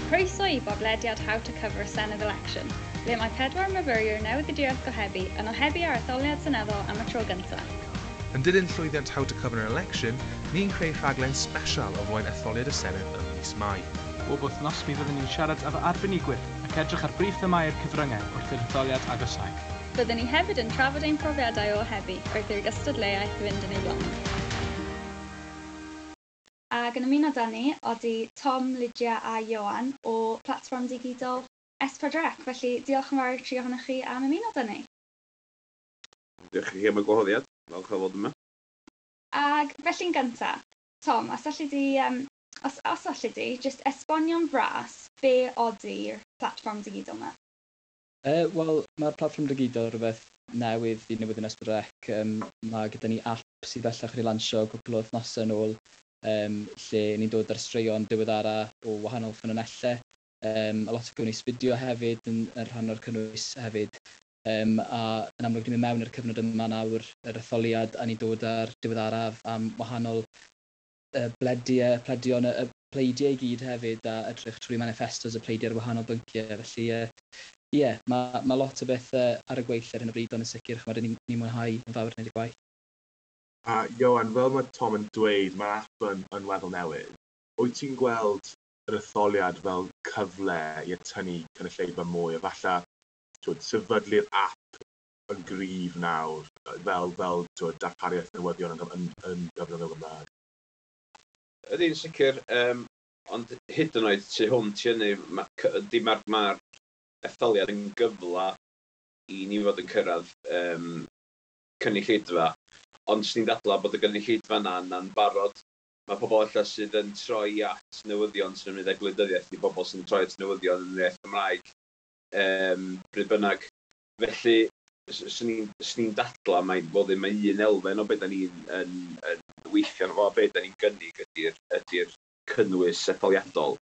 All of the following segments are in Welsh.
Croeso i bodlediad How to Cover a Senedd Election, ble mae pedwar myfyriwr newyddiaduraeth gohebu yn ohebu ar etholiad seneddol am y tro gyntaf. Yn dilyn llwyddiant How to Cover an Election, ni'n creu rhaglen sbesial o flaen etholiad y Senedd ym mis Mai. Bob wythnos mi fyddwn ni'n siarad efo arbenigwyr ac edrych ar brif themâu'r cyfryngau wrth i'r etholiad agosáu. Byddwn ni hefyd yn trafod ein profiadau o ohebu wrth i'r gystadleuaeth fynd yn ei blaen. Ac yn ymuno â ni odi Tom, Lydia a Ioan o platfform digidol S4C. Felly diolch yn fawr i'r tri ohonoch chi am ymuno â ni. Diolch i chi am y gwahoddiad. Falch o fod yma. Ag felly'n gyntaf, Tom, os alli di, os alli di, jyst esbonio'n fras be odi'r platfform digidol yma? Wel, mae'r platfform digidol rhywbeth newydd i Newyddion S4C. Mae gyda ni app sydd bellach wedi lansio cwpl o wythnosau yn ôl, lle ni'n dod ar straeon diweddara o wahanol ffynonellau. A lot o gynnwys fideo hefyd yn rhan o'r cynnwys hefyd. A yn amlwg ni'n mynd mewn i'r cyfnod yma nawr, yr etholiad, a ni'n dod ar diweddaraf am wahanol blediau, pledion, y pleidiau i gyd hefyd, a edrych trwy manifestos y pleidiau ar wahanol bynciau. Felly, ie, yeah, mae lot o bethau ar y gweill ar hyn o bryd, ond yn sicr, ch'mod, ni mwynhau yn fawr wneud y gwaith. A Ioan, fel mae Tom yn dweud, mae'r app yn weddol newydd. Wyt ti'n gweld yr etholiad fel cyfle i atynnu cynulleidfa mwy, a falle twyd, sefydlu'r app yn gryf nawr, fel twyd, darpariaeth newyddion yn gyfrwng y Gymraeg? Ydy'n sicr, ond hyd yn oed tu hwnt i hynny, mae'r ma etholiad yn gyfle i ni fod yn cyrraedd cynulleidfa, ond swn i'n dadlau bod y gynulleidfa yna'n barod. Mae pobl ella sydd yn troi at newyddion sy'n ymwneud â gwleidyddiaeth i bobl sy'n troi at newyddion yn yr iaith Gymraeg, bryd bynnag. Felly, swn i'n dadlau mai fod ddim un elfen o beth da ni'n yn weithio arno fo, a beth da ni'n gynnig ydy'r cynnwys etholiadol.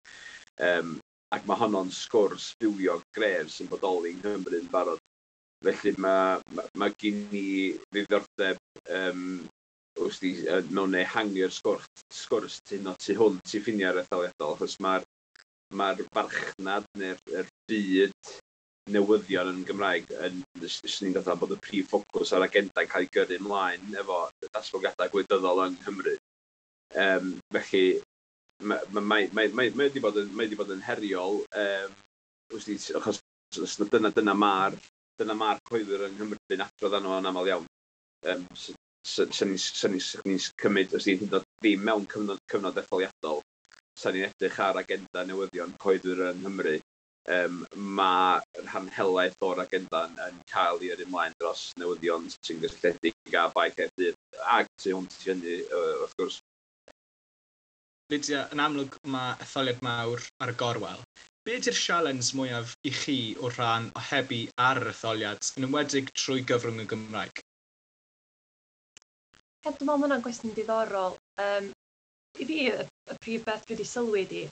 Ac mae honno'n sgwrs fywiog gref sy'n bodoli yng Nghymru yn barod. Felly mae gen i ddiddordeb wrth i, mewn ehangu'r sgwrs tu hwnt i ffiniau'r etholiadol, achos mae'r farchnad neu'r byd newyddion yn Gymraeg yn, swn i'n dadlau bod y prif ffocws ar agenda'n cael ei gyrru ymlaen efo datblygiadau gwleidyddol yng Nghymru. Felly, mae wedi bod yn heriol, wrth i, achos dyna mae'r cyhoeddwyr yng Nghymru'n adrodd arno yn aml iawn. Sa'n ni'n cymryd, os ni'n hyd yn oed ddim mewn cyfnod etholiadol, sa'n ni'n edrych ar agenda newyddion cyhoeddwyr yng Nghymru, mae rhan helaeth o'r agenda yn cael ei yrru ymlaen dros newyddion sy'n gysylltiedig â Bae Caerdydd, ac tu hwnt i hynny, wrth gwrs. Lydia, yn amlwg mae etholiad mawr ar y gorwel. Be ydy'r sialens mwyaf i chi o rhan ohebu ar yr etholiad, yn enwedig trwy gyfrwng y Gymraeg? Ie, dwi'n meddwl ma' hwnna'n gwestiwn diddorol. I fi, y prif beth dwi wedi sylwi ydi,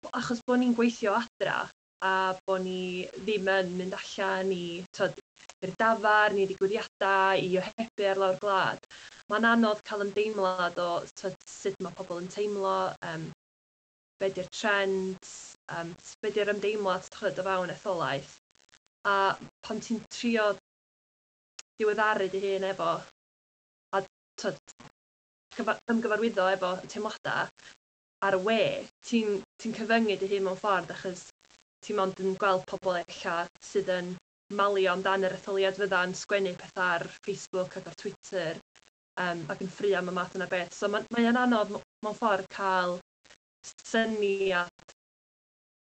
achos bod ni'n gweithio adra a bod ni ddim yn mynd allan i, t'od, i'r dafarn, i ddigwyddiadau, i ohebu ar lawr gwlad, mae'n anodd cael ymdeimlad o, t'od, sut mae pobl yn teimlo, be di'r trends, be di'r ymdeimlad, t'od, o fewn etholaeth. A pan ti'n trio diweddaru dy hun efo, a t'od, ymgyfarwyddo efo teimladau ar y we, ti'n cyfyngu dy hun mewn ffordd, achos ti mond yn gweld pobl ella sydd yn malio amdan yr etholiad fydda'n sgwennu pethau ar Facebook ac ar Twitter, ac yn ffrio am y math yna beth. So mae o'n anodd mewn ffordd cael syniad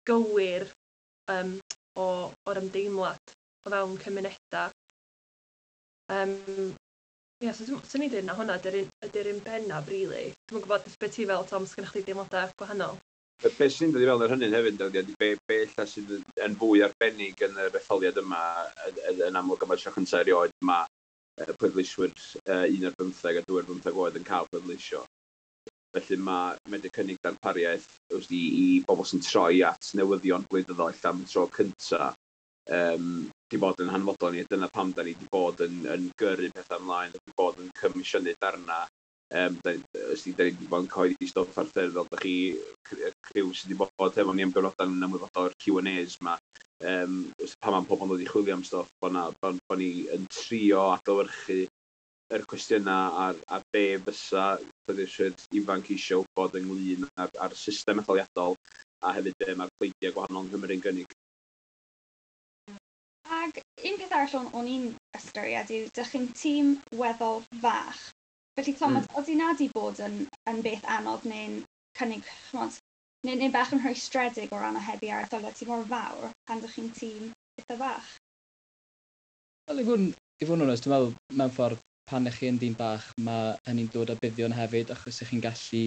gywir o'r ymdeimlad o fewn cymunedau. Ie, so swn i'n dweud na hwnna ydy'r un bennaf, really. Dwi'm yn gwybod beth ti fel, Tom, sgynnoch chdi deimladau gwahanol? Be sy'n dod i fewn ar hynny hefyd, ydy be ella sydd yn fwy arbennig yn yr etholiad yma, yn amlwg am y tro cyntaf erioed, mae pleidleiswyr 1 ar 15 a 2 ar 15 oed yn cael pleidleisio. Felly mae medru cynnig darpariaeth wrth i bobl sy'n troi at newyddion gwleidyddol ella am y tro cyntaf, di bod yn hanfodol ni, a dyna pam da ni di bod yn gyrru pethau ymlaen, di bod yn comisiynu darna Da ni wedi bod yn cyhoeddi stwff ar ffurf fel da chi, criw sydd wedi bod efo ni am gyfnodau yn ymwybodol o'r Q&As ma. Pan mae pobl yn dod i chwilio am stwff, bod ni yn trio adlewyrchu yr cwestiynau a be fysa pleidleiswyr ifanc eisiau wybod ynglyn â'r system etholiadol a hefyd be mae'r pleidiau gwahanol yng Nghymru'n gynnig. Ag un peth arall o'n i'n ystyried yw, dych chi'n tîm weddol fach. Felly, Tom, oeddi na di bod yn beth anodd neu'n cynnig, ch'mod, neu bach yn rhwystredig o ran ohebu ar etholiad sydd mor fawr pan dych chi'n tîm eitha fach? Wel, i fod yn onest, dwi'n meddwl mewn ffordd pan ych chi yn dîm bach, mae hynny'n dod â buddion hefyd, achos ych chi'n gallu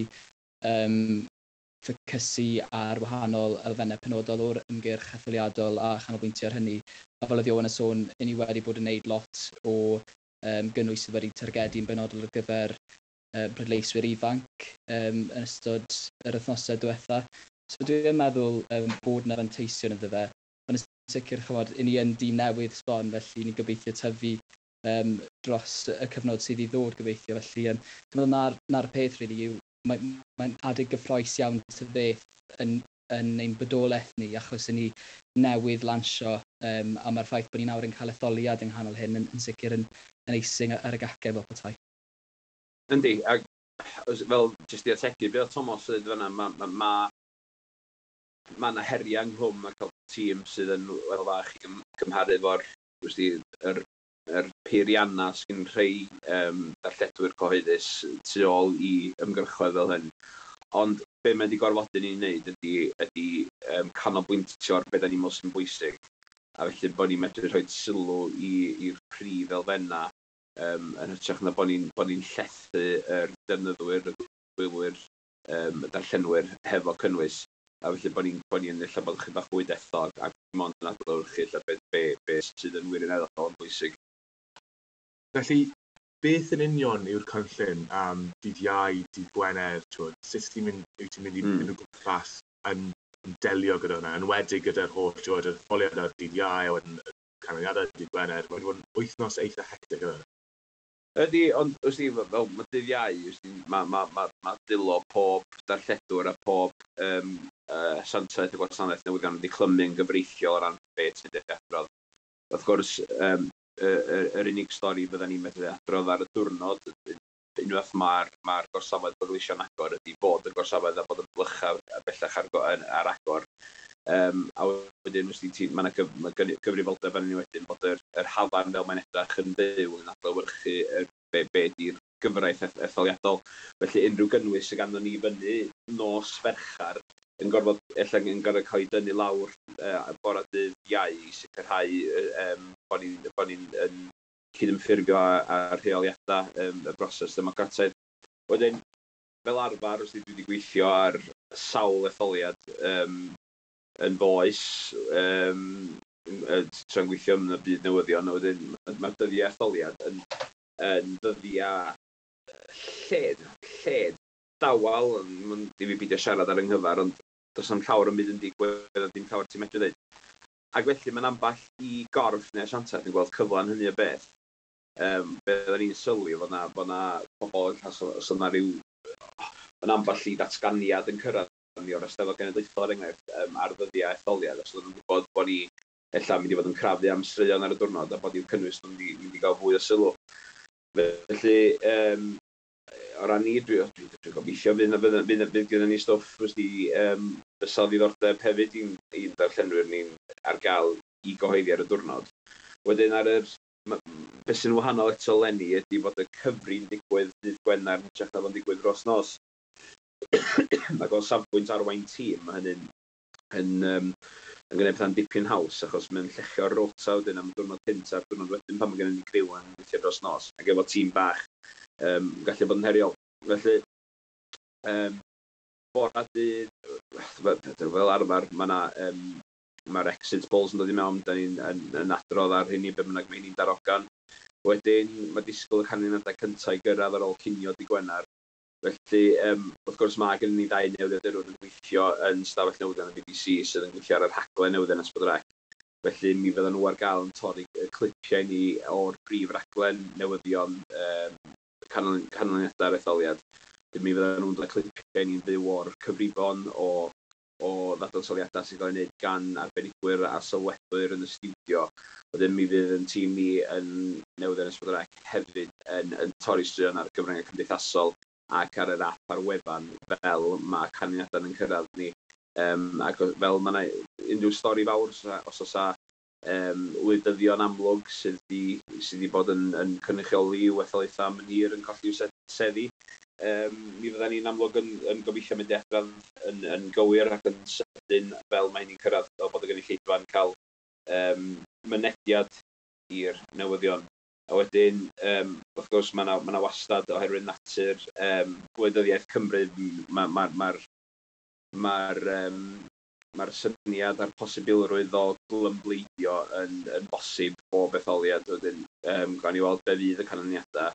ffocysu ar wahanol elfennau penodol o'r ymgyrch etholiadol a chanolbwyntio ar hynny. A fel oedd Iwan yn sôn, ni wedi bod yn gwneud lot o gynnwys sydd wedi targedu'n benodol ar gyfer pleidleiswyr ifanc yn ystod yr wythnosau diwetha. So dwi'n meddwl bod yna fanteision iddo fe. Ond yn sicr, chymod, i ni yn dîm newydd sbon, felly ni'n gobeithio tyfu dros y cyfnod sydd i ddod gobeithio. Felly dwi'n meddwl na'r peth really yw, mae adeg gyffrous iawn ta beth yn ein bodolaeth ni, achos ni newydd lansio, a mae'r ffaith bod ni nawr yn cael etholiad yng nghanol hyn yn sicr yn icing ar y gacen fel petai. Yndi, ac fel jyst i ategu, be oedd Thomas yn dweud fan'na, ma 'na heriau ynghlwm a cael tîm sydd yn weddol fach i gymharu efo'r yr peiriannau sy'n rhai darlledwyr cyhoeddus tu ôl i ymgyrchoedd fel hyn. Ond be mae wedi gorfodi ni'n wneud ydy canolbwyntio ar beth da ni'n meddwl sy'n bwysig. A felly bod ni'n medru rhoi sylw i'r prif elfennau yn hytrach na bod ni llethu yr defnyddwyr, y gwylwyr, y darllenwyr hefo cynnwys. A felly bod ni ella bod chydig bach fwy dethol ac mond yn adlewyrchu ella be sydd yn wirioneddol yn bwysig. Felly, beth yn union yw'r cynllun am dydd Iau, dydd Gwener, twyd, sut wyt ti'n mynd i mynd o gwmpas yn delio gyda hwnna, yn enwedig gyda'r holl, twyd, yr etholiad ar dydd Iau, a wedyn y canlyniadau dydd Gwener, mae'n bod yn wythnos eitha hectic yna. Ydy, ond wrth fel mae dydd Iau, mae dwylo pob darlledwr a pob asiantaeth y gwasanaeth newyddion wedi clymu'n gyfreithiol o ran beth sy'n wedi adrodd. Wrth gwrs, yr unig stori fydda ni'n medru adrodd ar y diwrnod, unwaith mae'r gorsafoedd pleidleisio'n agor, ydy bod y gorsafoedd a bod y blychau bellach ar agor. A wedyn, mae yna gyfrifoldeb arnyn ni wedyn bod yr hafan fel mae'n edrych yn fyw yn adlewyrchu be di'r gyfraith etholiadol. Felly unrhyw gynnwys sydd ganddo ni fyny nos Ferchar yn gorfod, ella yn gorfod cael ei dynnu lawr bore dydd Iau i sicrhau bod ni'n yn cydymffurfio â rheoliadau y broses democrataidd. Wedyn, fel arfer, os dwi wedi gweithio ar sawl etholiad yn f'oes, tra'n gweithio yn y byd newyddion, a wedyn mae'r dyddiau etholiad yn ddyddiau lled dawel, mae'n di fi beidio siarad ar 'y nghyfer, ond does na'm llawer yn byd yn digwydd a dim llawer ti'n medru dweud. Ac felly mae'n ambell i gorff neu asiantaeth yn gweld cyfle yn hynny o beth. Be oedden ni'n sylwi fod na pobl, os oedd na ryw, yn ambell i ddatganiad yn cyrraedd ni o'r Eisteddfod Genedlaethol er enghraifft ar ddyddiau etholiad, os oedden nhw'n gwybod bod ni ella mynd i fod yn crafu am straeon ar y diwrnod a bod i'w cynnwys nhw'n mynd i gael fwy o sylw. Felly, o ran ni, dwi gobeithio fydd gyda ni stwff wrth fysa ddiddordeb hefyd i'n darllenwyr ni'n ar gael i gyhoeddi ar y diwrnod. Wedyn beth sy'n wahanol eto leni ydy fod y cyfri'n digwydd dydd Gwener yn hytrach na fo'n digwydd dros nos. Ac o safbwynt arwain tîm, mae hynny'n yn gwneud pethau'n dipyn haws, achos mae'n llechio'r rota wedyn am y diwrnod cynt a'r diwrnod wedyn pan mae gennym ni criw yn gweithio dros nos. Ac efo tîm bach, gallu bod yn heriol. Felly, bora dydd, fel arfer, mae yna mae'r exit polls yn dod i mewn, da ni'n yn adrodd ar hynny, be bynnag mae hynny'n darogan. Wedyn, mae disgwyl y canlyniadau cyntaf i gyrraedd ar ôl cinio dydd Gwener. Felly, wrth gwrs, mae gennym ni ddau newyddiadurwr yn gweithio yn stafell newyddion y BBC sydd yn gweithio ar y rhaglen newyddion S4C. Felly, mi fyddan nhw ar gael yn torri y clipiau ni o'r brif raglen newyddion. Canlyniadau'r etholiad. Mi fyddan nhw'n dod â clipiau ni'n fyw o'r cyfrifon o ddadansoddiadau sy'n cael ei wneud gan arbenigwyr a sylwebwyr yn y stiwdio. Wedyn mi fydd yn tîm ni yn Newyddion S4C hefyd yn torri straeon ar gyfryngau cymdeithasol ac ar yr app ar wefan fel mae canlyniadau yn cyrraedd ni. Ac fel mae yna unrhyw stori fawr, os oes wleidyddion amlwg sydd 'di bod yn cynrychioli i'w etholaethau am yn hir yn colli'w seddi, mi fyddan ni'n amlwg yn gobeithio mynd i adrodd yn gywir ac yn sydyn fel mae hynny'n cyrraedd, fel bod y gynulleidfa'n cael mynediad i'r newyddion. A wedyn, wrth gwrs, mae yna ma wastad, oherwydd natur gwleidyddiaeth Cymru, mae'r ma, ma, ma, ma syniad a'r posibilrwydd o glymbleidio yn bosib bob etholiad. Wedyn, gawn ni weld be fydd y canlyniadau,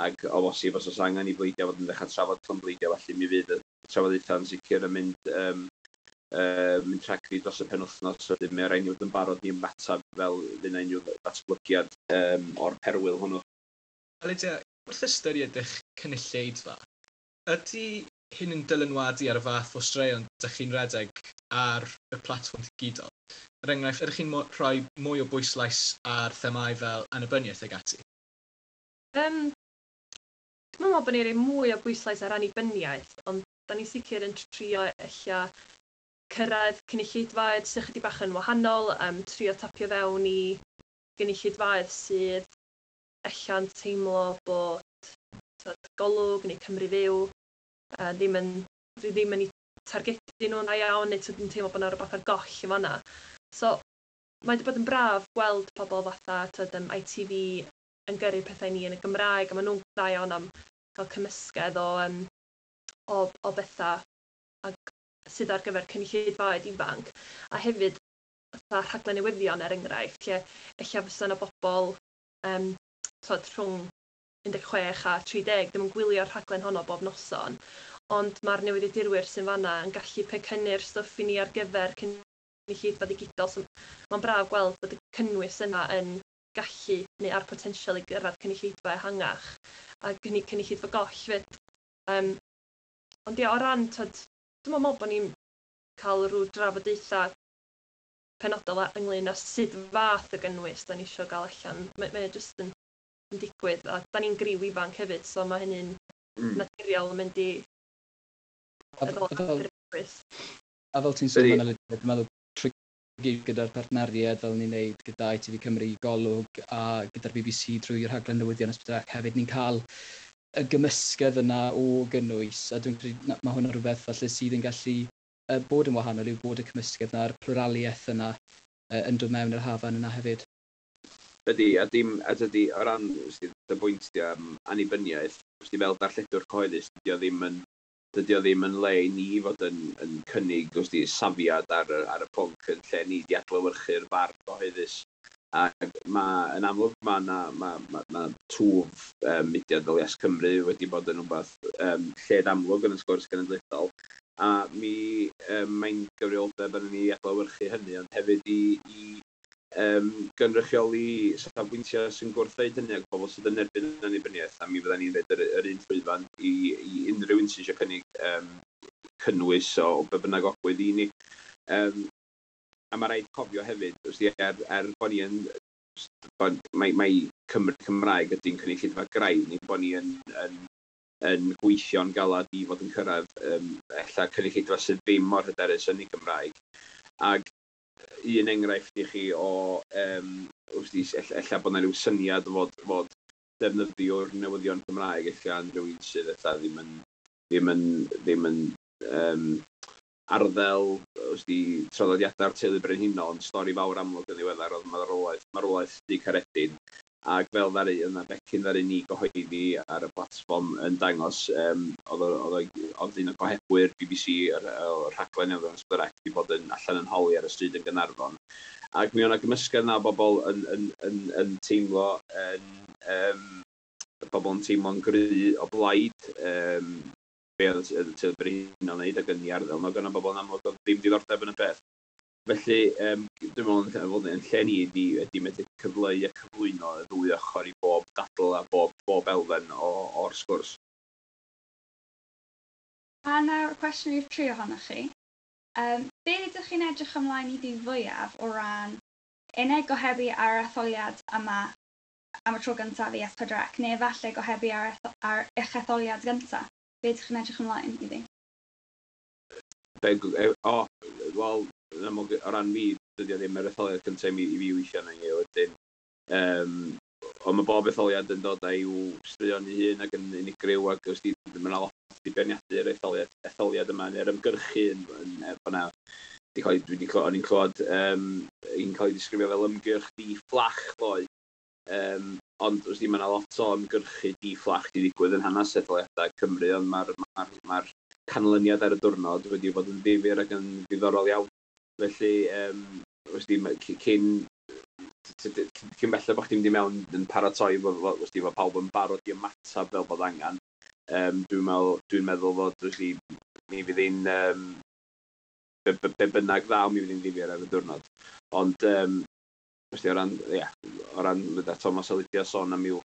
ac o bosib os oes angen i bleidiau fod yn dechrau trafod clymbleidio, felly mi fydd y trafodaethau yn sicr yn mynd rhagddi dros y penwythnos. Wedyn mae rhaid ni fod yn barod i ymateb fel fydd yna unrhyw ddatblygiad o'r perwyl hwnnw. Lydia, wrth ystyried eich cynulleidfa, ydy hyn yn dylanwadu ar y fath o straeon ydych chi'n redeg ar y platfform digidol? Er enghraifft, ydych chi'n rhoi mwy o bwyslais ar themâu fel annibyniaeth ag ati? Dwi'n meddwl bod ni'n rhoi mwy o bwyslais ar annibyniaeth, ond da ni'n sicr yn trio ella cyrraedd cynulleidfaoedd sydd chydig bach yn wahanol, trio tapio fewn i gynulleidfaoedd sydd ella'n teimlo bod, tyd, Golwg neu Cymru Fyw ddim yn eu targedu nhw'n dda iawn, neu tyd, yn teimlo bod yna rhywbeth ar goll yn fanna. So, mae wedi bod yn braf gweld pobl fatha, tyd, ITV yn gyrru pethau ni yn y Gymraeg, a maen nhw'n dda iawn am cael cymysgedd o bethau ag sydd ar gyfer cynulleidfaoedd ifanc. A hefyd, fatha rhaglen newyddion er enghraifft, lle ella fysa yna bobl tyd, rhwng 16 a 30 ddim yn gwylio'r rhaglen honno bob noson, ond mae'r newyddiadurwyr sy'n fanna yn gallu pecynnu'r stwff i ni ar gyfer cynulleidfa digidol. So, mae'n braf gweld bod y cynnwys yna yn gallu neu ar potensial i gyrraedd cynulleidfa ehangach a cynulleidfa goll fyd. Ond ia, o ran, tyd, dwi'n meddwl bod ni'n cael rhyw drafodaethau penodol ynglyn â sut fath o gynnwys da ni eisiau gael allan. Mae jyst yn digwydd, a da ni'n griw ifanc hefyd, so mae hynny'n naturiol yn mynd i a fel ti'n sôn yna, dwi'n meddwl trwy gyda'r partneriaid fel ni'n neud gyda ITV Cymru, Golwg a gyda'r BBC drwy'r rhaglen newyddion S4C hefyd, ni'n cael y gymysgedd yna o gynnwys, a dwi'n credu mae hwnna rhywbeth falle sydd yn gallu bod yn wahanol yw bod y cymysgedd yna, a'r pluraliaeth yna yn dod mewn i'r hafan yna hefyd. Ydy, a dim, a dydy, o ran dy bwynt di am annibyniaeth, fel darlledwr cyhoeddus, dydy o ddim yn le i ni fod yn cynnig safiad ar y pwnc, yn lle ni di adlewyrchu'r farn gyhoeddus. Ac mae, yn amlwg, mae ma, ma, ma, ma twf mudiad fel Yes Cymru wedi bod yn rhywbeth lled amlwg yn y sgwrs genedlaethol. A mi mae'n gyfrifoldeb arnon ni i adlewyrchu hynny, ond hefyd i gynrychioli safbwyntiau sy'n gwrthweud hynny ac pobl sydd yn erbyn annibyniaeth, a mi fydden ni'n rhoid yr un llwyfan i unrhyw un sydd eisiau cynnig cynnwys o be bynnag ogwydd i ni. A mae rhaid cofio hefyd, er bod ni yn, bod, mae Cymru Cymraeg ydy'n cynulleidfa graidd ni, bod ni yn gweithio'n galad i fod yn cyrraedd ella cynulleidfa sydd ddim mor hyderus yn ei Gymraeg. Ac un enghraifft i chi o, ella bod yna rhyw syniad fod defnyddio'r newyddion Cymraeg ella yn rhywun sydd ella ddim yn arddel traddodiadau'r teulu brenhinol, ond stori fawr amlwg yn ddiweddar oedd marwolaeth Dug Caredin. Ac fel ddaru, yna becyn ddaru ni gyhoeddi ar y platfform yn dangos, oedd un o gohebwyr BBC, o'r rhaglen newyddion S4C, wedi bod yn allan yn holi ar y stryd yn Gaernarfon. Ac mi oedd 'na gymysgedd yna o bobl yn teimlo yn, bobl yn teimlo'n gry o blaid be oedd y teulu brenhinol yn wneud ac yn ei arddel. Mae gynna bobl yn amlwg oedd ddim diddordeb yn y peth. Felly, dwi'n meddwl fod yn lle ni ydy medru cyfleu a cyflwyno y ddwy ochr i bob dadl a bob elfen o'r sgwrs. A nawr, cwestiwn i'r tri ohonoch chi. Be ydych chi'n edrych ymlaen iddi fwyaf o ran unig gohebu ar yr etholiad yma am y tro gyntaf i S4C, neu efallai gohebu ar eich etholiad gyntaf? Be ydych chi'n edrych ymlaen iddi? O, wel, yn amlwg, o ran fi, dydy o ddim yr etholiad cyntaf i fi weithio arno hi wedyn. Ond mae bob etholiad yn dod â'i straeon ei hun ac yn unigryw, ac os di, mae yna lot i beirniadu'r etholiad yma, neu'r ymgyrchu yn fyna. Di cael ei, dwi di clywed, o'n i'n clywed, un cael ei ddisgrifio fel ymgyrch di-fflach ddoe. Ond wrth i mae yna lot o ymgyrchu di-fflach di ddigwydd yn hanes etholiadau Cymru, ond mae'r ma canlyniad ar y diwrnod wedi bod yn ddifyr ac yn ddiddorol iawn. Felly, wrth i, cyn belled bod chdi'n mynd i mewn yn paratoi, wrth i, fod pawb yn barod i ymateb fel bod angen. Dwi'n meddwl fod, wrth i, mi fydd hi'n, be bynnag ddaw, mi fydd hi'n ddifyr ar y diwrnod. Ond, wrth i, o ran gyda Thomas a Lydia sôn am i'w,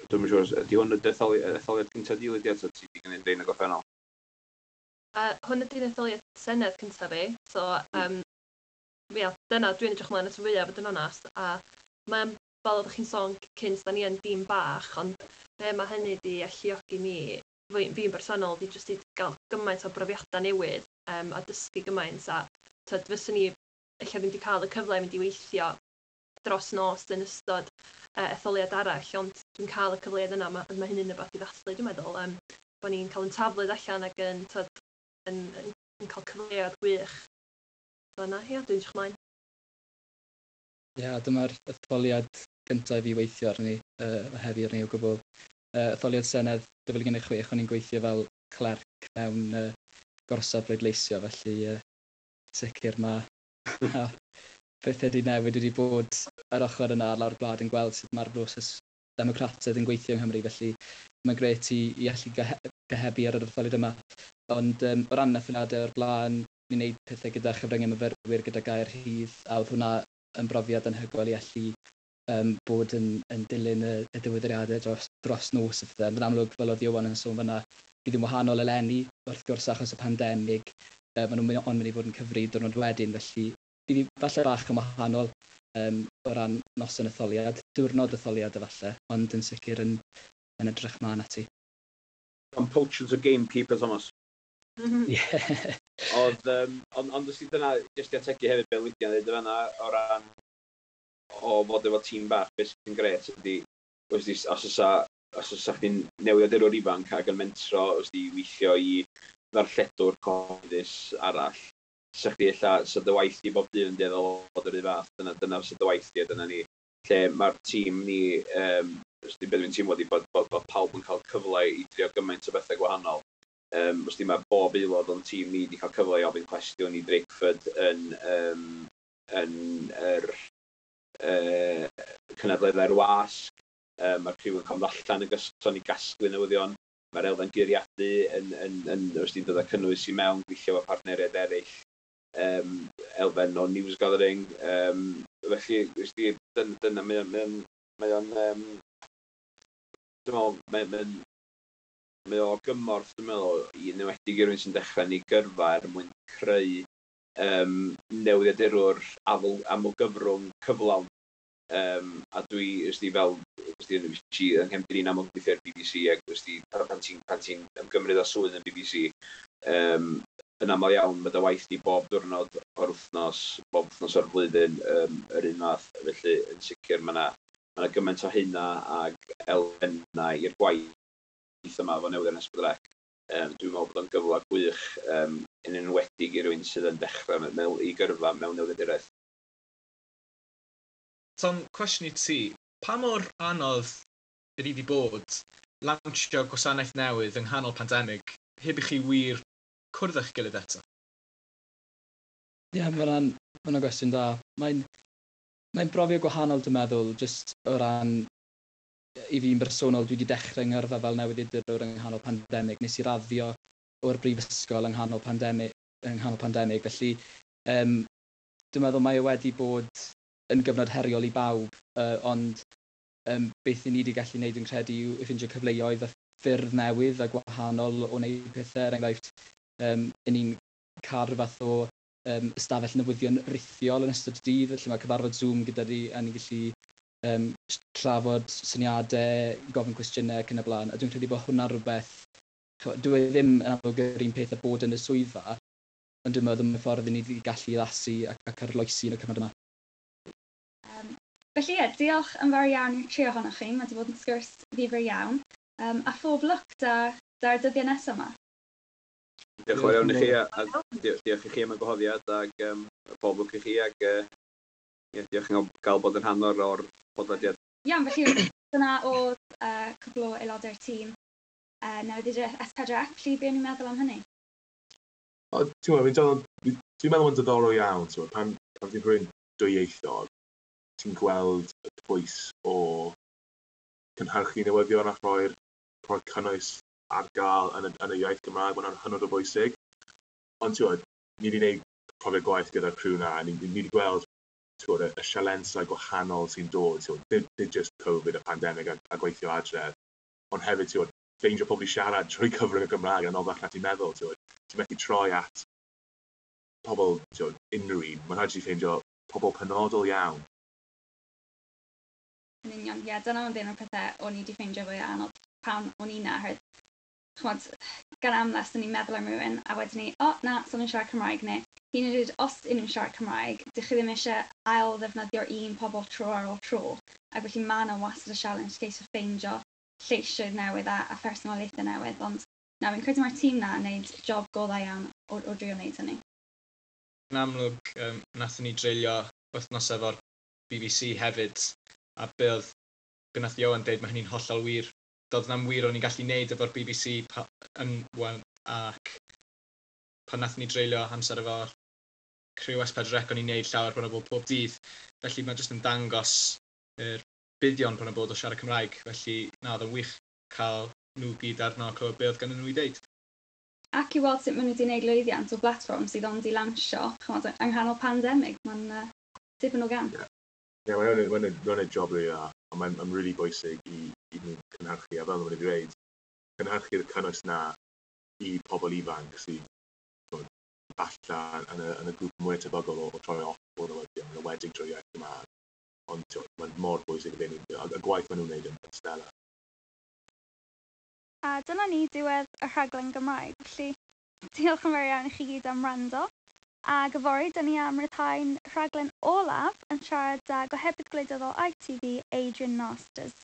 dwi'm yn siŵr, ydy hwn y etholiad cyntaf di, Lydia, ta ti wedi gwneud rhain y gorffennol? Hwn ydy'r etholiad Senedd cyntaf fi, so ia, dyna dwi'n edrych ymlaen at y fwyaf, fod yn onast, a mae'n, fel oeddech chi'n sôn cynt, da ni yn dîm bach, ond be mae hynny di alluogi ni, fi'n bersonol, di jyst i gael gymaint o brofiadau newydd a dysgu gymaint, a tyd, fyswn ni ella ddim wedi cael y cyfle i mynd i weithio dros nos yn ystod etholiad arall, ond dwi'n cael y cyfleoedd yna, mae hynny'n rhywbeth i ddathlu, dwi'n meddwl, bod ni'n cael yn taflyd allan ac yn, tyd, yn cael cyfleoedd gwych. So yna, ia, dwi'n edrych ymlaen. Ie, dyma'r etholiad gyntaf i fi weithio arni, heddi arni o gwbl. Etholiad Senedd 2016, o'n i'n gweithio fel clerc mewn gorsaf bleidleisio, felly sicr mae pethau wedi newid wedi bod ar ochr yna ar lawr gwlad yn gweld sut mae'r broses democrataidd yn gweithio yng Nghymru, felly mae'n grêt i allu gohebu ar yr etholiad yma. Ond o ran etholiadau o'r blaen, ni'n gwneud pethau gyda chyfryngau myfyrwyr, gyda Gair Rhydd, a oedd hwnna yn brofiad anhygoel i allu bod yn dilyn y diweddariadau dros nos a phethau. Ond yn amlwg, fel oedd Iwan yn sôn fan'na, bydd yn wahanol eleni, wrth gwrs achos y pandemig, maen nhw'n ond mynd i fod yn cyfri diwrnod wedyn, felly bydd hi falle bach yn wahanol o ran noson etholiad, diwrnod etholiad efallai, ond yn sicr yn edrych mlaen ati. Am poachers o gamekeeper, Thomas. Ie. Ond os dyna, jyst i ategu hefyd be Lydia'n dweud fan'na, o ran o fod efo tîm bach, beth sy'n grêt ydy, os oes chdi'n newyddiadurwr ifanc ac yn mentro, os di weithio i ddarlledwr cyhoeddus arall, sa chdi ella, sa dy waith di bob dydd yn dueddol o fod yr un fath, dyna sa dy waith di a dyna ni. Lle mae'r tîm ni, os di, be dwi'n teimlo di bod pawb yn cael cyfle i drio gymaint o bethau gwahanol. Os di, mae bob aelod o'n tîm ni wedi cael cyfle i ofyn cwestiwn i Drakeford yn yr cynadleddau'r wasg. Mae'r criw yn cael allan yn gyson i gasglu newyddion. Mae'r elfen guriadu yn os di'n dod â cynnwys i mewn, gweithio efo partneriaid eraill, elfen o news gathering. Felly, os di, dyna, mae o'n, dwi'n meddwl, mae o gymorth, dwi'n meddwl, i enwedig i rywun sy'n dechrau yn ei gyrfa er mwyn creu newyddiadurwr amlgyfrwng cyflawn. A dwi, os di, fel, os di, yn yng nghefndir i'n amlwg gweithio ar BBC, ac os di, pan ti'n ymgymryd â swydd yn BBC, yn aml iawn, mae dy waith di bob diwrnod o'r wythnos, bob wythnos o'r flwyddyn, yr un fath. Felly, yn sicr, mae yna gymaint o hynna ag elfennau i'r gwaith yma efo newyddion S4C. Dwi'n meddwl bod o'n gyfle gwych, yn enwedig i rywun sydd yn dechrau i gyrfa mewn newyddiaduraeth. Tom, cwestiwn i ti, pa mor anodd ydy di bod lawnsio gwasanaeth newydd yng nghanol pandemig heb i chi wir cwrdd â'ch gilydd eto? Ie, yeah, mae hwnna'n gwestiwn da. Mae'n brofiad gwahanol, dwi'n meddwl, jyst o ran i fi'n bersonol, dwi wedi dechrau yng ngyrfa fel newyddiadurwr yng nghanol pandemig. Nes i raddio o'r brifysgol yng nghanol pandemig, felly Dwi'n meddwl mae e wedi bod yn gyfnod heriol i bawb, ond beth i ni wedi gallu gwneud yn credu yw ffindio cyfleoedd a ffyrdd newydd a gwahanol o wneud pethau. Er enghraifft, i ni'n cael rhyw fath o ystafell newyddion rithiol yn ystod y dydd, lle mae cyfarfod Zoom gyda ni a ni'n gallu trafod syniadau, gofyn cwestiynau ac yn y blaen. A dwi'n credu bod hwnna'n rhywbeth, dwi e ddim yn amlwg yr un peth â bod yn y swyddfa, ond dwi'n meddwl mae'n ffordd i ni wedi gallu addasu ac arloesi yn y cyfnod yma. Felly ie, diolch yn fawr iawn i'r tri ohonoch chi. Mae wedi bod yn sgwrs ddifyr iawn. A phob lwc da'r dyddiau nesaf yma. Diolch yn fawr iawn i chi, a diolch i chi am y gwahoddiad, ac pob lwc i chi, ac yeah, diolch yn gael bod yn rhan o'r podlediad. Iawn, felly dyna oedd cwpl o aelodau'r tîm newyddiaduraeth S4C, felly be o'n i'n meddwl am hynny? O, ti'n gwybod, dwi'n meddwl mae'n diddorol iawn, ti'n gwybod, pan ti'n rhywun dwyieithog, ti'n gweld y pwys o cynhyrchu newyddion a rhoi'r cynnwys ar gael yn y iaith Gymraeg, mae'n hynod o bwysig. Ond ti'n gwybod, ni wedi gwneud profiad gwaith gyda'r criw na, ni wedi gweld, ti'n gwybod, y sialensau gwahanol sy'n dod, ti'n gwybod, nid just Covid a pandemig a gweithio adref, ond hefyd, ti'n gwybod, ffeindio pobl i siarad trwy cyfrwng y Gymraeg yn anoddach na ti'n meddwl, ti'n gwybod. Ti'n methu troi at pobl, ti'n gwybod, unrhyw un. Mae'n rhaid i ti ffeindio pobl penodol iawn. Yn union, ie, dyna oedd un o'r pethau o'n i wedi ffeindio fwy anodd pan o'n i na, oherwydd, ch'mod, gan amla, swn i'n meddwl am rhywun, a wedyn ni, o, na, so nhw'n siarad Cymraeg, neu hyd yn oed os ydyn nhw'n siarad Cymraeg, dych chi ddim eisiau ail ddefnyddio'r un pobl tro ar ôl tro, ac felly mae yna wastad y challenge ceisio ffeindio lleisiau newydd a phersonoliaethau newydd, ond na, fi'n credu mae'r tîm na yn gwneud job go dda iawn o drio wneud hynny. Yn amlwg, nathon ni dreulio wythnos efo'r BBC hefyd, a be oedd be nath Ioan deud, mae hynny'n hollol wir. Doedd na'm wir o'n i'n gallu neud efo'r BBC yn, well, ac pan nathon ni dreulio amser efo'r criw S4C, o'n i'n neud llawer bron o bod pob dydd. Felly mae jyst yn dangos yr buddion bron o bod o siarad Cymraeg. Felly na, oedd yn wych cael nhw gyd arno a clywed be oedd gan nhw i ddeud. Ac i weld sut maen nhw wedi gwneud lwyddiant o blatfform sydd ond i lansio, ch'mod, yng nghanol pandemig, mae'n dipyn o gamp. Ie, yeah, mae'n gwneud job rili dda, ond mae'n really bwysig i nhw cynhyrchu, a fel maen nhw wedi dweud, cynhyrchu'r cynnwys na i pobl ifanc sydd falle yn y grŵp mwy tebygol o troi off o'r newyddion, yn enwedig drwy iaith Gymraeg. Ond t'wod, mae'n mor bwysig i nhw, a gwaith maen nhw'n wneud yn stellar. A dyna ni diwedd y rhaglen Gymraeg, felly diolch yn fawr iawn i chi gyd am wrando. Ac yfory, dyn ni am ryddhau'n rhaglen olaf yn siarad â gohebydd gwleidyddol ITV, Adrian Masters.